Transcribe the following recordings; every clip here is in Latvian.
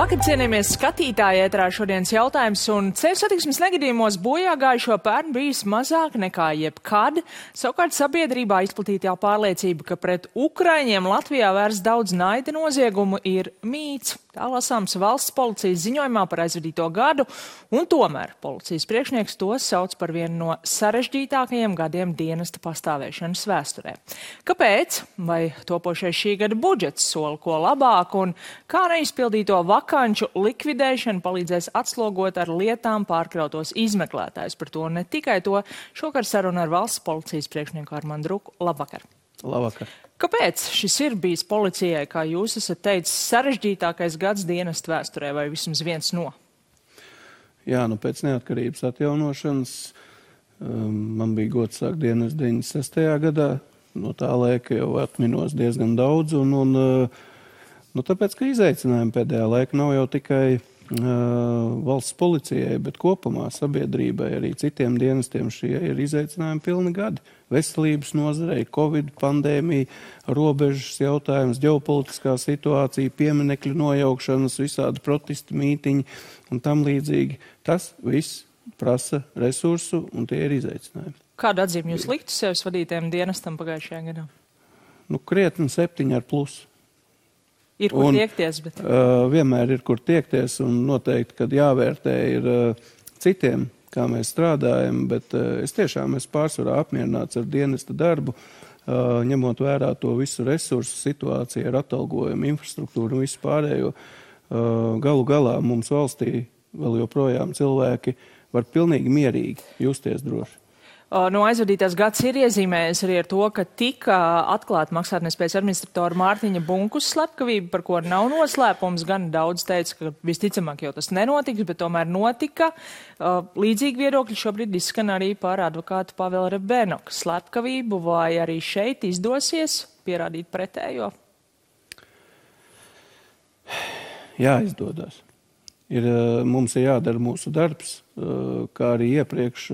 Labvakar, cienījamies skatītāji, ēterā šodienas jautājums, un ceļu satiksmes negadījumos bojā gājušo pērn bijis mazāk nekā jebkad. Savukārt sabiedrībā izplatītā pārliecība, ka pret ukraiņiem Latvijā vērsts daudz naida noziegumu, ir mīts. Tā lasāms valsts policijas ziņojumā par aizvadīto gadu, un tomēr policijas priekšnieks to sauc par vienu no sarežģītākajiem gadiem dienesta pastāvēšanas vēsturē. Kāpēc? Vai topošais šī gada budžets sola ko labāku, un kā neizpildīto vakanču likvidēšana palīdzēs atslogot ar lietām pārkrautos izmeklētājus? Par to ne tikai to. Šokar saruna ar valsts policijas priekšnieku Armandu Ruku. Labvakar! Labvakar! Kāpēc šis ir bijis policijai, kā jūs esat teicis, sarežģītākais gads dienesta vēsturē, vai vismaz viens no? Jā, pēc neatkarības atjaunošanas man bija gods sākt dienestu 96. gadā. No tā laika jau atminos diezgan daudz, tāpēc, ka izaicinājumi pēdējā laika nav jau tikai valsts policijai, bet kopumā sabiedrībai, arī citiem dienestiem šie ir izaicinājumi pilni gadi. Veselības nozarei, Covid pandēmija, robežas jautājums, ģeopolitiskā situācija, pieminekļu nojaukšanas, visādi protesti, mītiņi un tam līdzīgi. Tas viss prasa resursu, un tie ir izaicinājumi. Kādu atzīmi jūs liktu sevis vadītājiem dienestam pagājušajā gadā? Krietni 7+. Ir kur tiekties, bet... Vienmēr ir kur tiekties, un noteikti, kad jāvērtē ir citiem, kā mēs strādājam, bet es tiešām esmu pārsvarā apmierināts ar dienesta darbu, ņemot vērā to visu resursu situāciju ar atalgojumu, infrastruktūru un visu pārējo. Galu galā mums valstī vēl joprojām cilvēki var pilnīgi mierīgi justies droši. Aizvadītās gads ir iezīmējies arī ar to, ka tika atklāta maksātnespējas administratora Mārtiņa Bunkus slepkavība, par ko nav noslēpums. Gan daudz teica, ka visticamāk jau tas nenotiks, bet tomēr notika. Līdzīgi viedokļi šobrīd izskan arī par advokātu Pavela Rebenoka slepkavību, vai arī šeit izdosies pierādīt pretējo? Jā, izdodas. Mums ir jādara mūsu darbs, kā arī iepriekš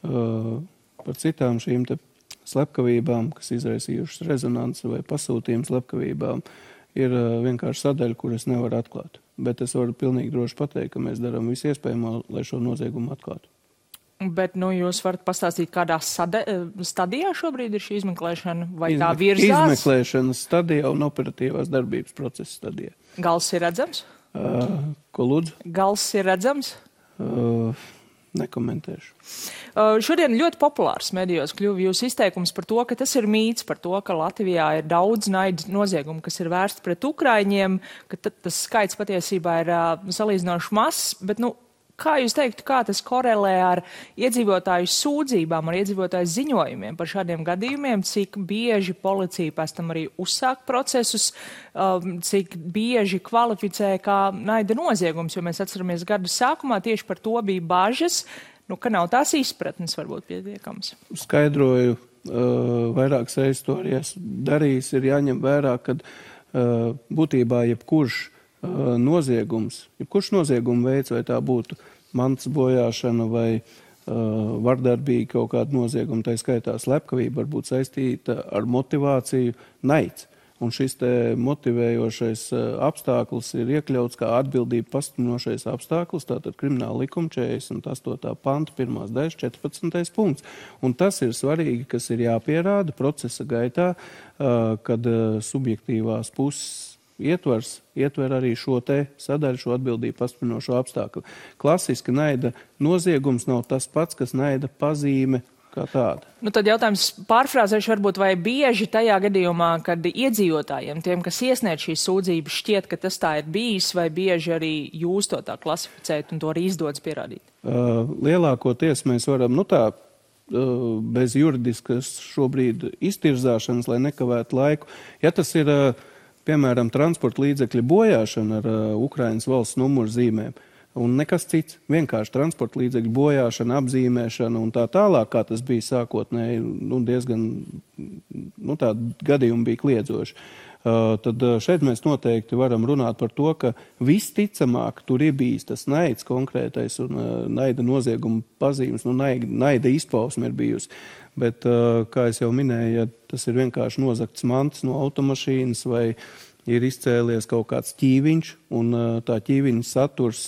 par citām šīm te slepkavībām, kas izraisījušas rezonanci vai pasūtījumu slepkavībām, ir vienkārši sadaļa, kur es nevaru atklāt. Bet es varu pilnīgi droši pateikt, ka mēs darām visu iespējamo, lai šo noziegumu atklātu. Bet jūs varat pastāstīt, kādā stadijā šobrīd ir šī izmeklēšana, vai tā virzās? Izmeklēšanas stadijā un operatīvās darbības procesa stadijā. Gals ir redzams? Ko lūdzu? Gals ir redzams? Nekomentēšu. Šodien ļoti populārs medijos kļuva jūsu izteikums par to, ka tas ir mīts, par to, ka Latvijā ir daudz naida noziegumu, kas ir vērsti pret ukraiņiem, ka tas skaits patiesībā ir salīdzinoši mazs, bet, kā jūs teiktu, kā tas korelē ar iedzīvotāju sūdzībām, ar iedzīvotāju ziņojumiem par šādiem gadījumiem, cik bieži policija pēc tam arī uzsāk procesus, cik bieži kvalificē kā naida noziegums, jo mēs atceramies gadu sākumā tieši par to bija bažas, ka nav tās izpratnes varbūt pietiekams. Skaidroju, vairākas reizes to arī darījis, ir jāņem vērā, kad būtībā jebkurš nozieguma veids, vai tā būtu mantas bojāšana vai vardarbīga kaut kāda nozieguma, tā skaitā slepkavība, var būt saistīta ar motivāciju naids. Un šis te motivējošais apstākļus ir iekļauts kā atbildība pastiprinošais apstākļus, tātad krimināla likuma 48. panta 1. daļas 14. punkts. Un tas ir svarīgi, kas ir jāpierāda procesa gaitā, kad subjektīvās puses ietver arī šo te sadaļu, šo atbildību pastiprinošo apstākļu. Klasiski naida noziegums nav tas pats, kas naida pazīme kā tāda. Tad jautājums pārfrāzēšu varbūt, vai bieži tajā gadījumā, kad iedzīvotājiem, tiem, kas iesniedz šīs sūdzības, šķiet, ka tas tā ir bijis, vai bieži arī jūs to tā klasificējat un to arī izdodas pierādīt? Lielākoties mēs varam, bez juridiskas šobrīd iztirzāšanas, lai nekavētu laiku. Ja tas ir, piemēram, transporta līdzekļa bojāšana ar Ukrainas valsts numuru zīmēm, un nekas cits, vienkārši transporta līdzekļu bojāšana, apzīmēšana un tā tālāk, kā tas bija sākotnēji, diezgan, tādi gadījumi bija kliedzoši. Tad šeit mēs noteikti varam runāt par to, ka visticamāk tur ir bijis tas naids konkrētais un naida nozieguma pazīmes, naida izpausme ir bijusi. Bet, kā es jau minēju, ja tas ir vienkārši nozagts mantas no automašīnas vai ir izcēlies kaut kāds ķīviņš, un tā ķīviņa saturs,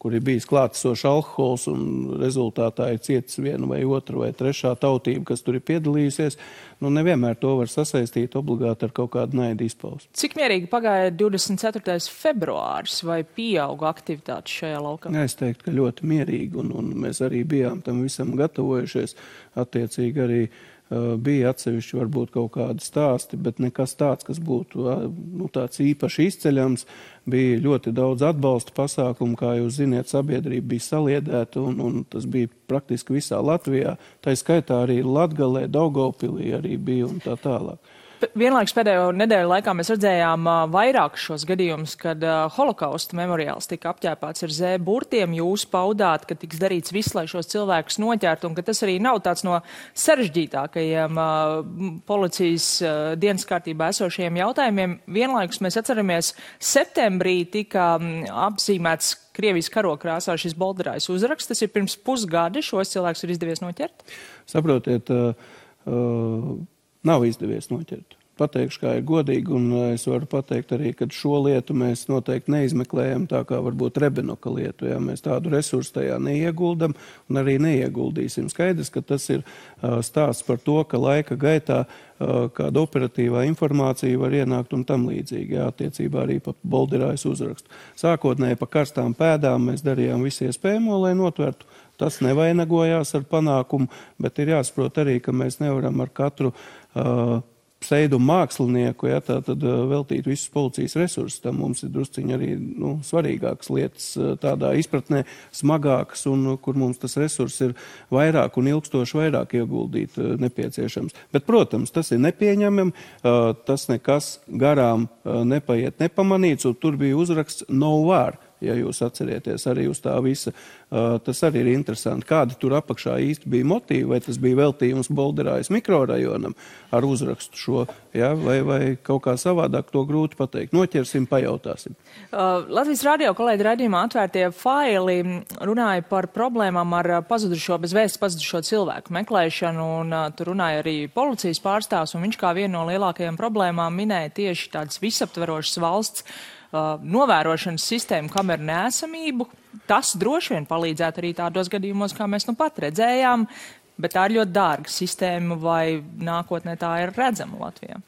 kur ir bijis klātesošs alkohols, un rezultātā ir cietis viena vai otra vai trešā tautība, kas tur ir piedalījusies, nevienmēr to var sasaistīt obligāti ar kaut kādu naidu izpausmi. Cik mierīgi pagāja 24. februāris, vai pieauga aktivitātes šajā laukā? Es teiktu, ka ļoti mierīgi, un mēs arī bijām tam visam gatavojušies. Attiecīgi arī bija atsevišķi varbūt kaut kādi stāsti, bet nekas tāds, kas būtu tāds īpaši izceļams. Bija ļoti daudz atbalsta pasākumu, kā jūs ziniet, sabiedrība bija saliedēta, un tas bija praktiski visā Latvijā. Tā skaitā arī Latgalē, Daugavpilī arī bija un tā tālāk. Vienlaikus pēdējo nedēļu laikā mēs redzējām vairākus šos gadījumus, kad holokausta memoriāls tika apķēpāts ar Z-burtiem. Jūs paudāt, ka tiks darīts viss, lai šos cilvēkus noķertu, un ka tas arī nav tāds no sarežģītākajiem policijas dienas kārtībā esošajiem jautājumiem. Vienlaikus mēs atceramies, septembrī tika apzīmēts Krievijas karokrāsā šis bolderājs uzraksts. Tas ir pirms pusgada, šos cilvēkus ir izdevies noķert? Saprotiet, nav izdevies noķert. Pateikšu, kā ir godīgi, un es varu pateikt arī, ka šo lietu mēs noteikti neizmeklējam tā kā varbūt Rebenoka lietu. Ja? Mēs tādu resursu tajā neieguldam un arī neieguldīsim. Skaidrs, ka tas ir stāsts par to, ka laika gaitā kāda operatīvā informācija var ienākt un tam līdzīgi. Jā, attiecībā arī pa bolderājas uzrakstu. Sākotnēji pa karstām pēdām mēs darījām visu iespējamo, lai notvertu. Tas nevainagojās ar panākumu, bet ir jāsaprot arī, ka mēs nevaram ar katru pseidumu mākslinieku, ja, tātad veltīt visus policijas resursus. Tam mums ir drusciņi arī svarīgākas lietas tādā izpratnē, smagākas, un kur mums tas resurs ir vairāk un ilgstoši vairāk ieguldīt nepieciešams. Bet, protams, tas ir nepieņemam, tas nekas garām nepaiet nepamanīts, un tur bija uzraksts no war. Ja jūs atcerieties arī uz tā visa, tas arī ir interesanti, kādi tur apakšā īsti bija motīvi, vai tas bija veltījums Bolderājas mikrorajonam ar uzrakstu šo, ja, vai kaut kā savādāk, to grūti pateikt. Noķersim, pajautāsim. Latvijas radio kolēģi raidījumā Atvērtie faili runāja par problēmām ar bez vēstas pazudušo cilvēku meklēšanu, un tur runāja arī policijas pārstāvs, un viņš kā vienu no lielākajām problēmām minēja tieši tādas visaptverošas valsts novērošanas sistēmu kameru neesamību. Tas droši vien palīdzētu arī tādos gadījumos, kā mēs pat redzējām, bet tā ir ļoti dārga sistēma, vai nākotnē tā ir redzama Latvijā?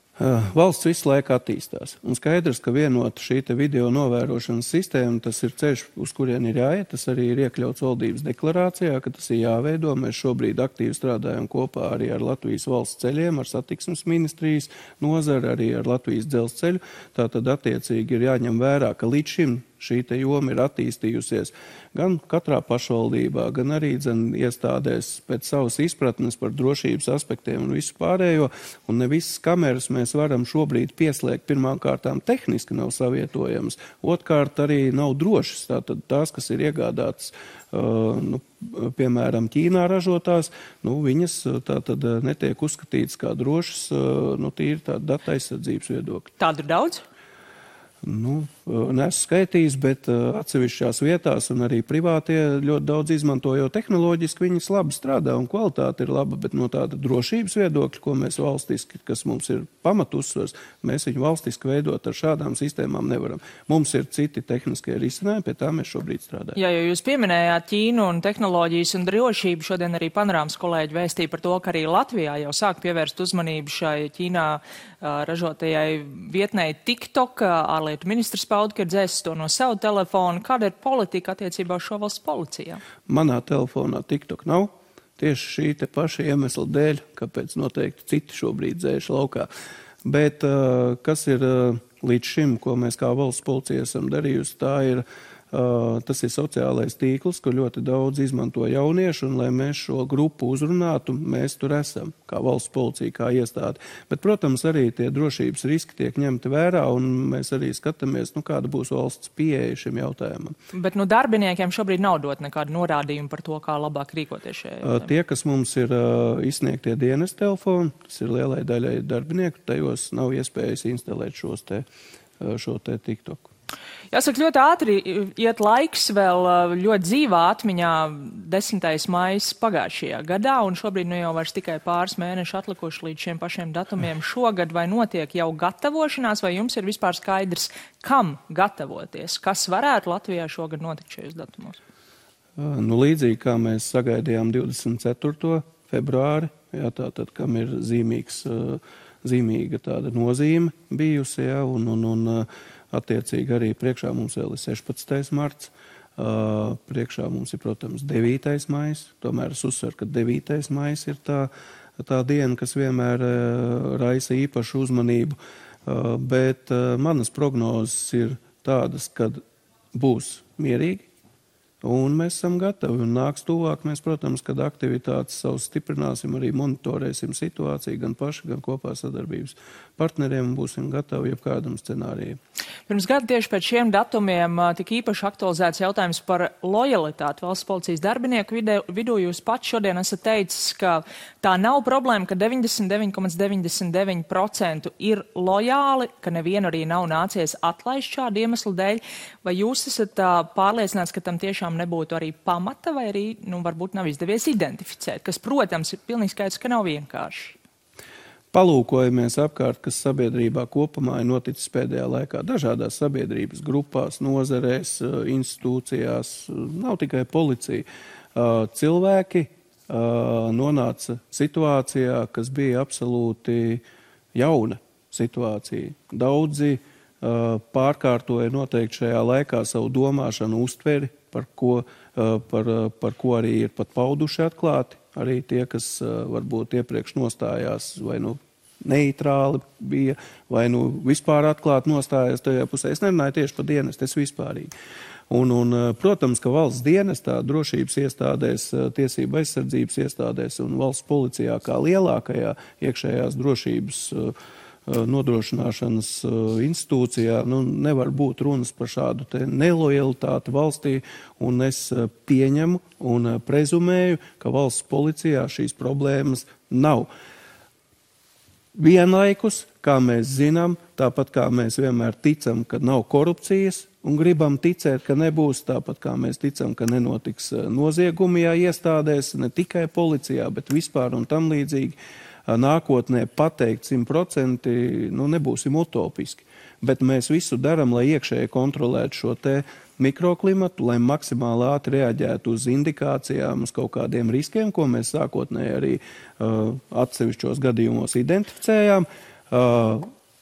Valsts visu laiku attīstās. Un skaidrs, ka vienota šī video novērošanas sistēma, tas ir ceļš, uz kurien ir jāiet. Tas arī ir iekļauts valdības deklarācijā, ka tas ir jāveido. Mēs šobrīd aktīvi strādājam kopā arī ar Latvijas valsts ceļiem, ar satiksmes ministrijas nozari, arī ar Latvijas dzelzceļu. Tātad attiecīgi ir jāņem vērā, ka līdz šim šī joma ir attīstījusies gan katrā pašvaldībā, gan arī iestādēs pēc savas izpratnes par drošības aspektiem un visu pārējo. Un ne visas kameras mēs varam šobrīd pieslēgt. Pirmām kārtām tehniski nav savietojamas, otrkārt arī nav drošas. Tātad tās, kas ir iegādātas, piemēram, Ķīnā ražotās, viņas tātad netiek uzskatītas kā drošas, tīri tāda data aizsardzības viedokļa. Tādu ir daudz? Neesmu skaitījis, bet atsevišķās vietās un arī privātie ļoti daudz izmanto, jo tehnoloģiski viņas labi strādā un kvalitāte ir laba, bet no tāda drošības viedokļa, ko mēs valstiski, kas mums ir pamatusvars, mēs viņu valstiski veidot ar šādām sistēmām nevaram. Mums ir citi tehniskie risinājumi, pie tā mēs šobrīd strādājam. Jā, jo jūs pieminējāt Ķīnu un tehnoloģijas un drošību, šodien arī Panorāmas kolēģi vēstīja par to, ka arī Latvijā jau sāk pievērst uzmanību šai Ķīnā ražotajai vietnei TikTok. Ārlietu ministrs pauda, ka ir dzēsis to no savu telefonu. Kāda ir politika attiecībā uz šo valsts policijā? Manā telefonā TikTok nav. Tieši šī te paša iemesla dēļ, kāpēc noteikti citi šobrīd dzēš laukā. Bet kas ir līdz šim, ko mēs kā valsts policija esam darījusi, tas ir sociālais tīkls, ko ļoti daudz izmanto jaunieši, un lai mēs šo grupu uzrunātu, mēs tur esam, kā valsts policija, kā iestāde. Bet, protams, arī tie drošības riski tiek ņemti vērā, un mēs arī skatāmies, kāda būs valsts pieeja šim jautājumam. Bet darbiniekiem šobrīd nav dot nekādu norādījumu par to, kā labāk rīkoties šajā jautājumā? Tie, kas mums ir izsniegtie dienas telefoni, tas ir lielai daļai darbinieku, tajos nav iespējas instalēt šo te TikToku. Jāsaka, ļoti ātri iet laiks, vēl ļoti dzīvā atmiņā 10. maijs pagājušajā gadā, un šobrīd nu jau vairs tikai pāris mēneši atlikuši līdz šiem pašiem datumiem šogad, vai notiek jau gatavošanās, vai jums ir vispār skaidrs, kam gatavoties, kas varētu Latvijā šogad notikt šajos datumos? Nu, līdzīgi kā mēs sagaidījām 24. februāri, jā, tātad, kam ir zīmīga tāda nozīme bijusi, jā, un attiecīgi arī priekšā mums vēl ir 16. marts, priekšā mums ir, protams, 9. maijs, tomēr es uzsveru, ka 9. maijs ir tā diena, kas vienmēr raisa īpašu uzmanību, bet manas prognozes ir tādas, kad būs mierīgi, un mēs esam gatavi, un nāks tuvāk, mēs, protams, kad aktivitātes savus stiprināsim, arī monitorēsim situāciju, gan paši, gan kopā sadarbības partneriem, un būsim gatavi jebkādam scenārijam. Pirms gada tieši pēc šiem datumiem tika īpaši aktualizēts jautājums par lojalitāti valsts policijas darbinieku vidū. Jūs pats šodien esat teicis, ka tā nav problēma, ka 99,99% ir lojāli, ka nevienu arī nav nācies atlaist šādu iemeslu dēļ. Vai jūs esat pārliecināts, ka tam tiešām nebūtu arī pamata, vai arī, varbūt nav izdevies identificēt, kas, protams, ir pilnīgi skaidrs, ka nav vienkārši? Palūkojamies apkārt, kas sabiedrībā kopumā ir noticis pēdējā laikā. Dažādās sabiedrības grupās, nozarēs, institūcijās, nav tikai policija. Cilvēki nonāca situācijā, kas bija absolūti jauna situācija. Daudzi pārkārtoja noteikti šajā laikā savu domāšanu uztveri, par ko arī ir pat pauduši atklāti. Arī tie, kas varbūt iepriekš nostājās vai neitrāli bija, vai vispār atklāti nostājās tajā pusē. Es nerunāju tieši par dienestu, es vispārīgi. Un, protams, ka valsts dienestā, drošības iestādēs, tiesība aizsardzības iestādēs un valsts policijā kā lielākajā iekšējās drošības nodrošināšanas institūcijā, nevar būt runas par šādu te nelojalitāti valstī, un es pieņemu un prezumēju, ka valsts policijā šīs problēmas nav. Vienlaikus, kā mēs zinām, tāpat kā mēs vienmēr ticam, ka nav korupcijas, un gribam ticēt, ka nebūs, tāpat kā mēs ticam, ka nenotiks noziegumi iestādēs, ne tikai policijā, bet vispār un tam līdzīgi. Nākotnē pateikt 100%, nebūsim utopiski, bet mēs visu daram, lai iekšēji kontrolētu šo te mikroklimatu, lai maksimāli ātri reaģētu uz indikācijām, uz kaut kādiem riskiem, ko mēs sākotnēji arī atsevišķos gadījumos identificējām.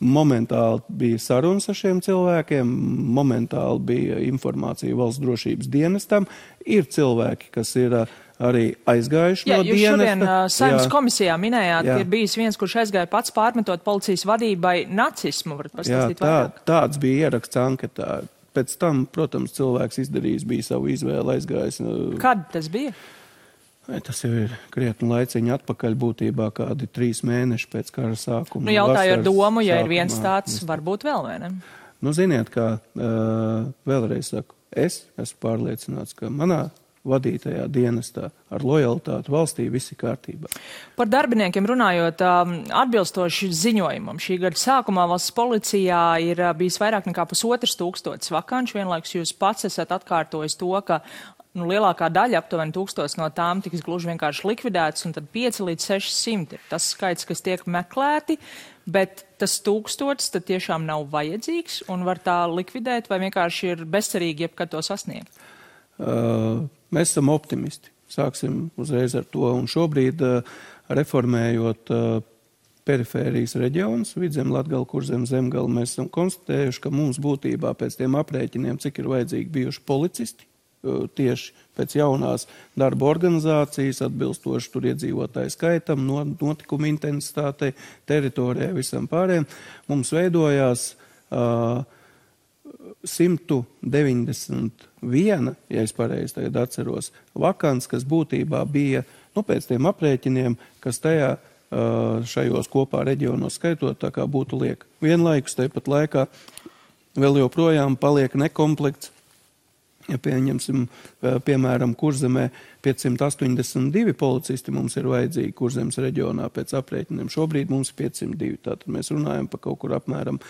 Momentāli bija sarunas ar šiem cilvēkiem, momentāli bija informācija valsts drošības dienestam. Ir cilvēki, kas ir arī aizgājuši no dienesta. Jūs šodien Saeimas komisijā minējāt, ka ir bijis viens, kurš aizgāja pats pārmetot policijas vadībai nacismu. Varat pastāstīt vairāk? Tāds bija ieraksts anketā. Pēc tam, protams, cilvēks izdarījis bija savu izvēli, aizgājis. Kad tas bija? Tas jau ir krietni laiciņi atpakaļ, būtībā kādi 3 mēneši pēc kara sākuma. Jautāju ar domu, ja ir viens tāds, varbūt vēl, vai ne? Ziniet, kā vēlreiz saku, es esmu pārliecināts, ka manā vadītajā dienestā ar lojalitāti valstī viss ir kārtībā. Par darbiniekiem runājot, atbilstoši ziņojumam, šī gada sākumā valsts policijā ir bijis vairāk nekā 1500 vakanču. Vienlaikus jūs pats esat atkārtojis to, ka lielākā daļa, aptuveni 1000 no tām tiks gluži vienkārši likvidētas, un tad 5 līdz 600 ir tas skaits, kas tiek meklēti, bet tas 1000 tad tiešām nav vajadzīgs un var tā likvidēt, vai vienkārši ir bezcerīgi jebkad to sasniegt? Mēs esam optimisti. Sāksim uzreiz ar to. Un šobrīd, reformējot perifērijas reģionus, Vidzem, Latgala, Kurzem, Zemgala, mēs esam konstatējuši, ka mums būtībā pēc tiem aprēķiniem, cik ir vajadzīgi bijuši policisti, tieši pēc jaunās darba organizācijas, atbilstoši tur iedzīvotāju skaitam, notikumu intensitātei, teritorijai, visam pārējiem, mums veidojās 191, ja es pareizi tagad atceros, vakants, kas būtībā bija, pēc tiem aprēķiniem, kas tajā šajos kopā reģionos skaitot, tā kā būtu liek. Vienlaikus, tāpat laikā vēl joprojām paliek nekomplekts Ja pieņemsim, piemēram, Kurzemē 582 policisti mums ir vajadzīgi Kurzemes reģionā pēc aprēķiniem. Šobrīd mums ir 502, tātad mēs runājam par kaut kur apmēram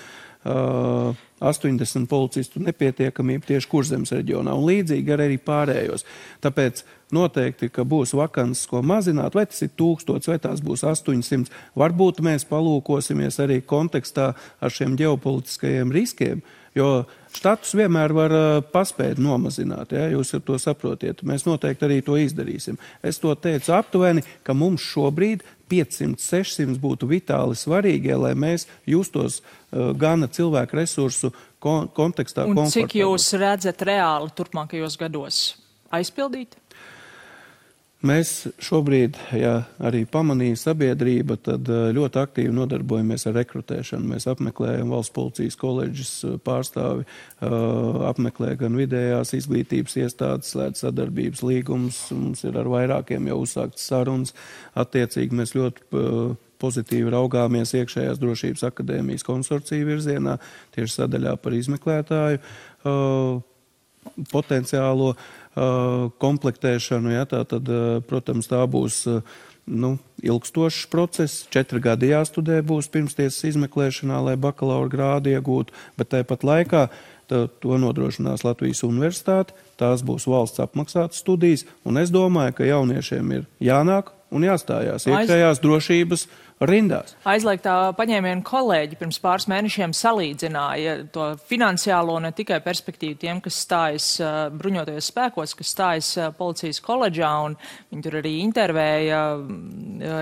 80 policistu nepietiekamību tieši Kurzemes reģionā un līdzīgi arī pārējos. Tāpēc noteikti, ka būs vakances, ko mazināt, vai tas ir 1000, vai tās būs 800. Varbūt mēs palūkosimies arī kontekstā ar šiem ģeopolitiskajiem riskiem, jo štatus vienmēr var paspēt nomazināt, ja, jūs to saprotiet. Mēs noteikti arī to izdarīsim. Es to teicu aptuveni, ka mums šobrīd 500-600 būtu vitāli svarīgie, lai mēs justos gana cilvēku resursu kontekstā komfortabli. Un cik jūs redzat reāli turpmākajos gados aizpildīt? Mēs šobrīd, ja arī pamanīja sabiedrība, tad ļoti aktīvi nodarbojamies ar rekrutēšanu. Mēs apmeklējam valsts policijas koledžas pārstāvi, apmeklē gan vidējās izglītības iestādes, slēdz sadarbības līgumus, mums ir ar vairākiem jau uzsāktas sarunas. Attiecīgi mēs ļoti pozitīvi raugāmies iekšējās drošības akadēmijas konsorcija virzienā, tieši sadaļā par izmeklētāju potenciālo komplektēšanu, ja, tātad, protams, tā būs ilgstošs process. 4 gadi jāstudē būs pirmstiesas izmeklēšanā, lai bakalaura grādu iegūtu, bet tāpat laikā to nodrošinās Latvijas universitāte, tās būs valsts apmaksātas studijas, un es domāju, ka jauniešiem ir jānāk un jāstājās iekšējās drošības rindās. Aizliegtā paņēmiena kolēģi pirms pāris mēnešiem salīdzināja to finansiālo ne tikai perspektīvu tiem, kas stājas bruņotajos spēkos, kas stājas policijas koledžā, un viņi tur arī intervēja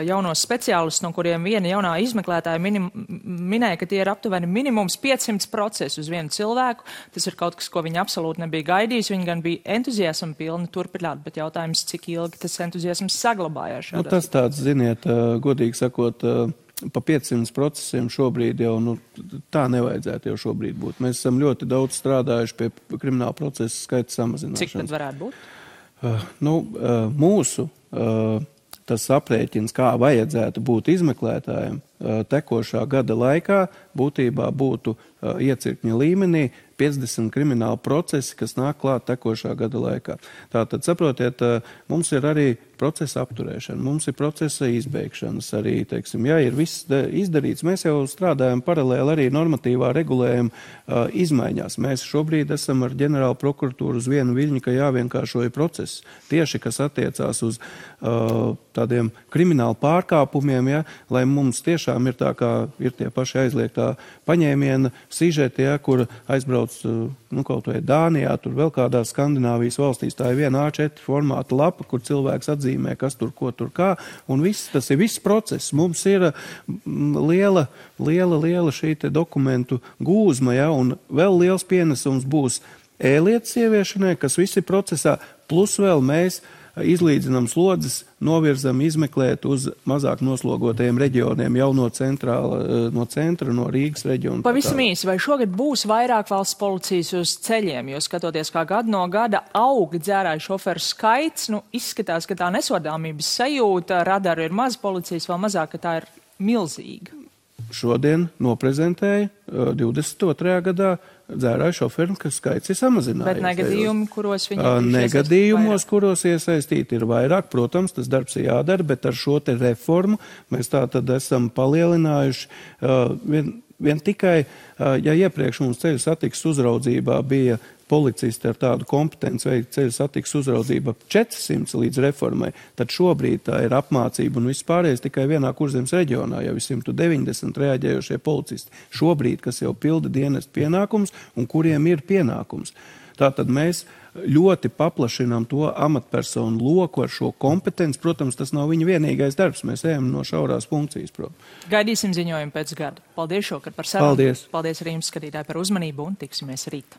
jaunos speciālistus, no kuriem viena jaunā izmeklētāja minēja, ka tie ir aptuveni minimums 500 procesu uz vienu cilvēku. Tas ir kaut kas, ko viņi absolūti nebija gaidījis. Viņi gan bija entuziasma pilni turpināt, bet jautājums, cik ilgi tas entuziasms saglabājās. Tas tāds, ziniet, godīgi sakot, pa 500 procesiem šobrīd jau, tā nevajadzētu jau šobrīd būt. Mēs esam ļoti daudz strādājuši pie krimināla procesa skaita samazināšanas. Cik tad varētu būt? Mūsu tas aprēķins, kā vajadzētu būt izmeklētājiem tekošā gada laikā, būtībā būtu iecirkņa līmenī 50 krimināla procesi, kas nāk klāt tekošā gada laikā. Tātad, saprotiet, mums ir arī procesa apturēšana, mums ir procesa izbeigšanas arī, teiksim, ja ir viss izdarīts, mēs jau strādājam paralēli arī normatīvā regulējuma izmaiņās. Mēs šobrīd esam ar ģenerālu prokuratūru uz vienu viļņu, ka jāvienkāršoja process. Tieši, kas attiecās uz tādiem kriminālu pārkāpumiem, ja, lai mums tiešām ir tā, kā ir tie paši aizliegtā paņēmiena sižeti, ja, kur aizbrauc kaut vai Dānijā, tur vēl kādās Skandināvijas valstīs. Tā ir viena A4 formāta lapa, kur cilvēks atzīmē, kas tur, ko tur kā, un tas ir viss process. Mums ir liela šī te dokumentu gūzma, ja, un vēl liels pienesums būs e-lietas ieviešanai, kas visi procesā, plus vēl mēs izlīdzinām slodzes, novirzam izmeklēt uz mazāk noslogotajiem reģioniem jau no centra, no Rīgas reģiona. Pavisam īsi, vai šogad būs vairāk valsts policijas uz ceļiem, jo skatoties, kā gadu no gada aug dzērāju šoferu skaits, izskatās, ka tā nesodāmības sajūta, radaru ir maz, policijas vēl mazāk, ka tā ir milzīga. Šodien noprezentēja 22. gadā dzērāju šoferu, ka skaits ir samazinājies. Bet negadījumi, kuros viņi negadījumos, kuros iesaistīti ir vairāk, protams, tas darbs ir jādara, bet ar šo te reformu mēs tā tad esam palielinājuši vien tikai, ja iepriekš mums ceļu satiksmes uzraudzībā bija policisti ar tādu kompetenci veikt ceļu satiksmes uzraudzību 400 līdz reformai, tad šobrīd tā ir apmācība un vispārējais tikai vienā Kurzemes reģionā, jau 190 reaģējošie policisti. Šobrīd, kas jau pilda dienestu pienākums un kuriem ir pienākums. Tātad mēs ļoti paplašinām to amatpersonu loku ar šo kompetenci. Protams, tas nav viņa vienīgais darbs. Mēs ejam no šaurās funkcijas prom. Gaidīsim ziņojumu pēc gada. Paldies šokar par sarunu. Paldies. Paldies arī jums, skatītāji, par uzmanību un tiksimies rīt.